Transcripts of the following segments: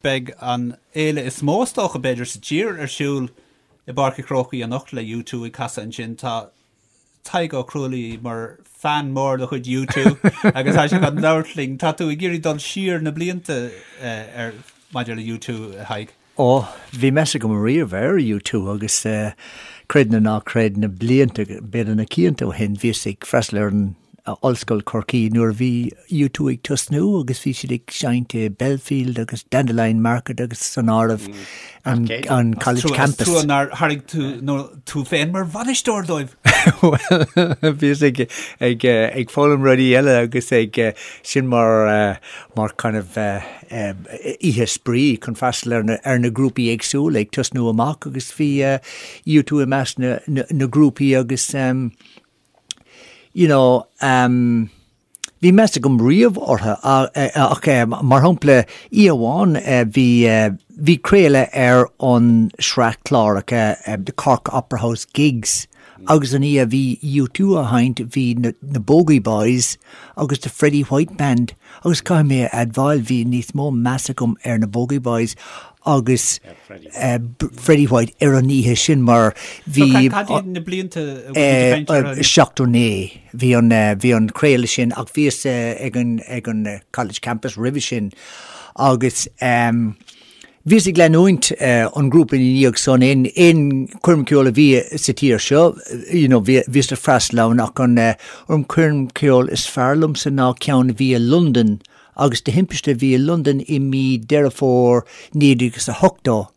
Beidh an fhéile is mó is dócha, b'fhéidir, sa tír ar siúl i bPáirc an Chrócaigh anocht le U2 ag casadh ansin. Tá Tadhg Ó Cruadhlaoich mar fan mór de chuid U2 agus tá sé chun labhairt linn. Tá tú ag iarraidh dul siar na blianta ar maidir le U2, a Thaidhg. Ó, bhí meas agam riamh ar U2 agus creid nó ná creid, na blianta, b'fhéidir na cianta ó shin, bhíos ag freastal ar an Ollscoil Chorcaí nuair a bhí U2 ag tosnú agus bhí siad ag seinnt i Belfield agus Dandelion Market agus san áireamh an an College Campus. Trua nár thairg tú nó tú féin mar bhainisteoir dóibh! Bhuel, bhíos ag ag ag foghlaim rudaí eile agus ag sin mar mar kind of oíche spraoi chun freastal ar na ar na grúpaí éagsúla ag tosnú amach agus bhí U2 i measc na na grúpaí agus you know, um, bhí meas agam riamh orthu ach mar shampla oíche amháin bhí bhí craoladh ar an sraith cláracha The Cork Opera House Gigs agus an oíche a bhí U2 á sheinnt bhí na na Bogey Boys agus The Freddie White Band agus caithfidh mé a admháil bhí níos mó meas agam ar na Bogey Boys agus Freddie White ar an oíche sin mar bhí. Cad iad na blianta a bhfuil tú ag caint orthu? 79 bhí an bhí an craoladh sin ach bhíos ag an ag an College Campus roimhe sin agus bhíos ag leanúint an grúpa ina dhiaidh san aon aon choirm ceoil a bhí sa tír seo you know bhí bhíos ag freastal ann ach an an choirm ceoil is fearr liomsa ná ceann a bhí i Londain agus de thimpiste bhí i Londain i mí Deireadh Fómhair 1980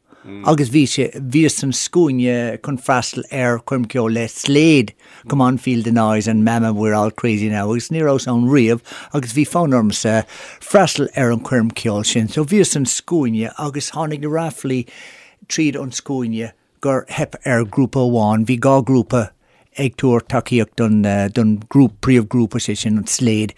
agus bhí sé, bhíos san scuaine chun freastal ar choirm ceoil le Slade, Come On Feel the Noise and Mama We're All Crazy Now agus ní rabhas ann riamh agus bhí fonn ormsa freastal ar an choirm ceoil sin. So bhíos san scuaine agus tháinig na ráflaí tríd an scuaine gur theip ar ghrúpa amháin, bhí 2 ghrúpa ag tabhairt tacaíocht don don ghrúp, príomhghrúpa, sé sin an Slade,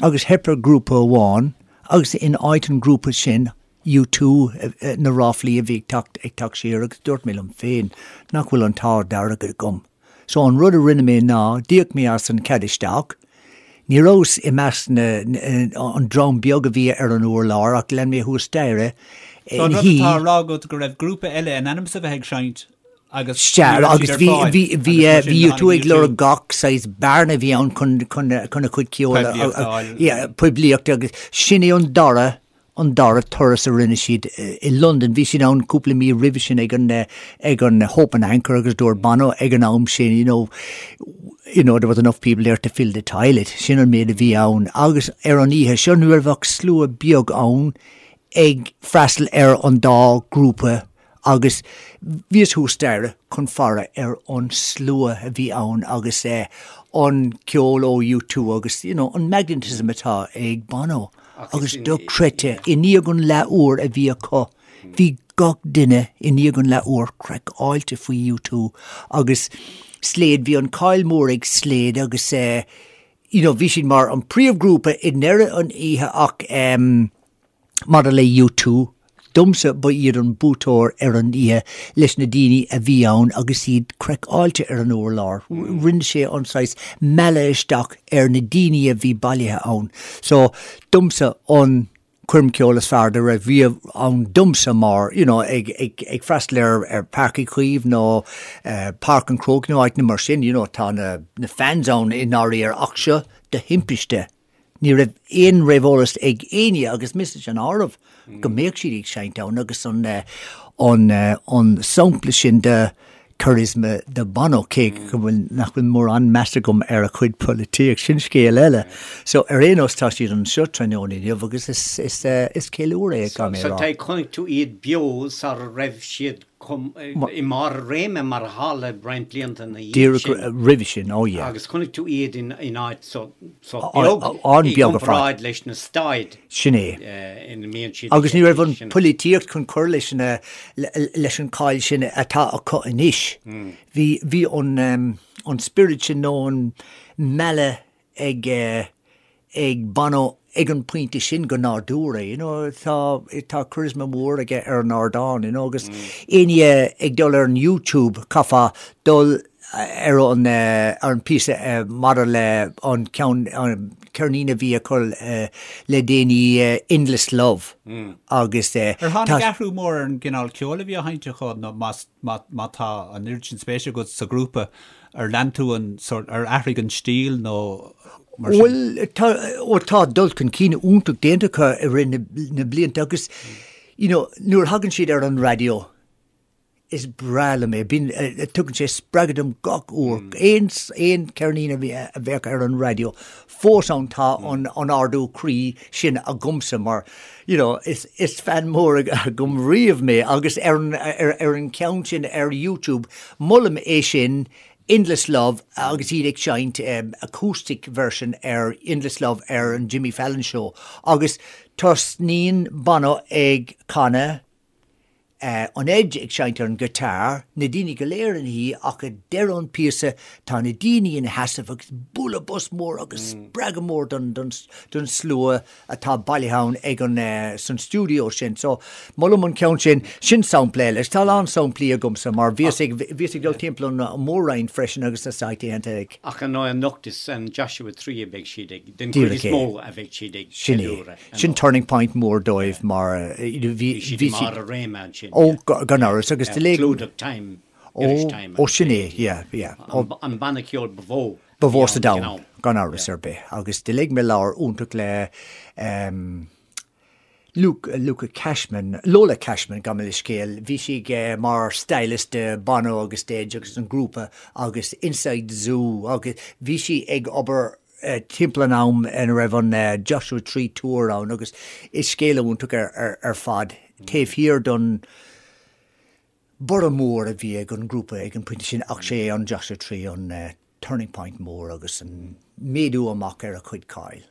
agus theip ar ghrúpa amháin agus in áit an ghrúpa sin, U2, na ráflaí a bhí ag teacht ag teacht siar agus dúirt mé liom féin nach bhfuil an t-ádh dearg agam. So an rud a rinne mé ná d'íoc mé as an cead isteach, ní rabhas i measc na, an dream beag a bhí ar an urlár ach lean mé thuas staighre So an rud atá á rá agat go raibh grúpa eile in ainm is a bheith ag seinnt agus Sea, ní raibh agus siad ar bhí, fáil bhí, bhí, agus mar sin bhí U2 tháinig ag lorg U2. gach saghas bearna a bhí ann chun, chun, chun a chuid ceoil a, Poiblíocht a fháil. yeah, poiblíocht agus sin é an dara an dara turas a rinne siad i Londain. Bhí siad ann cúpla mí roimhe sin ag an ag an Hope and Anchor agus dúirt Bono ag an am sin, you know, you know, there was enough people there to fill the toilet. Sin an méid a bhí ann. Agus ar an oíche seo ní raibh ach slua beag ann ag freastal ar an dá ghrúpa agus bhíos thuas staighre chun faire ar an slua a bhí ann agus an ceol ó U2 agus you know an magnetism atá ag Bono agus dochreidte i ndiaidh an leath uair a bhí acu bhí gach duine i ndiaidh an leath uair craiceáilte faoi U2 agus Slade bhí an cáil mór ag Slade agus you know bhí siad mar an príomhghrúpa i ndeireadh an oíche ach Maidir le U2, domsa ba iad an buaiteoir ar an oíche leis na daoine a bhí ann agus iad craiceáilte ar an urlár. Rinne sé an saghas mealladh isteach ar na daoine a bhí bailithe ann. So, domsa an choirm ceoil is fearr dá raibh riamh ann domsa mar, you know, ag, ag, ag freastal ar, ar Páirc Uí Chaoimh nó Páirc an Chrócaigh nó áiteanna mar sin, you know, tá na, na fans ann i ndáiríre ach seo de thimpiste. Ní raibh aon réamheolas ag éinne, agus mise san áireamh, go mbeadh siad ag seinnt ann agus an an an sampla sin de charisma de Bono, cé go bhfuil nach bhfuil mórán meas agam ar a chuid polaitíocht, sin scéal eile. So ar aon nós tá siad anseo tráthnóna inniu agus is is is ceiliúradh é, caithfidh mé a rá. So chonaic tú iad beo sara raibh siad i mbarr a réime mar a tharla roinnt blianta ina dhiaidh sin. Díreach roimhe sin, oh yeah. Agus chonaic tú iad in áit sách beag i gcomparáid leis na staid Sin é. ina mbíonn siad. Agus ní raibh an pholaitíocht chun cur leis na leis an cáil sin atá acu anois. Bhí bhí an an spiorad sin nó an mealladh ag ag Bono ag an pointe sin go nádúrtha, you know, tá tá charisma mór aige ar an ardán, you know, agus éinne ag dul ar an YouTube, caithfeá dul ar an ar an píosa maidir le an ceann an ceirnín a bhí acu le déanaí Endless Love agus Ar tháinig athrú mór ar an gcineál ceoil a bhí á sheinnt acu nó más má tá an oiread sin spéise agat sa ghrúpa ar lean tú an sórt ar athraigh an stíl nó mar sin? Bhuel tá ó tá dul chun cinn iontach déanta acu i rith na blianta agus you know nuair a thagann siad ar an raidió Is breá liom é. Bíonn, tugann sé spreagadh dom gach uair. Aon, aon cheirnín a bhí, a bheadh ar an raidió, fós ann tá an, an ardú croí sin agamsa mar, you know, is, is fan mór agam riamh mé agus ar an, ar, ar an cheann sin ar YouTube, molaim é sin, Endless Love agus iad ag seinnt acoustic version ar Endless Love ar an Jimmy Fallon Show agus tosnaíonn Bono ag canadh, an Edge ag seinnt ar an guitar, na daoine go léir ina shuí ach ag deireadh an píosa tá na daoine ina sheasamh agus bualadh bos mór agus spreagadh mór don don slua atá bailithe ann ag an san stiúideo sin. So molaim an ceann sin, sin sampla eile. Tá a lán samplaí agamsa mar bhíos ag bhíos ag dul timpeall an mhór-roinn freisin agus na saithéanta ag. Ach ar ndóigh anocht is an Joshua Tree a bheidh siad ag, den chuid is mó a bheidh siad ag ceiliúradh. Sin turning point mór dóibh mar bhí siad i mbarr a réime ansin. Ó, gan amhras agus de Clúdach Time, Irish Time. Ó, sin é, yeah, yeah. An banna ceoil ba mhó. Ba mhó sa domhan, gan amhras ar bith. Agus do léigh mé leabhar iontach le Luke, Luca Cashman, Lola Cashman, gabh mo leithscéal. Bhí sí mar stylist de Bono agus Edge agus an grúpa agus Inside Zoo agus bhí sí ag obair timpeall an am ina raibh an Joshua Tree Tour ann agus is scéal iontach ar fad taobh thiar don borradh mór a bhí ag an ngrúpa ag an pointe sin ach sé an Joshua Tree an turning point mór agus an méadú amach ar a chuid cáil.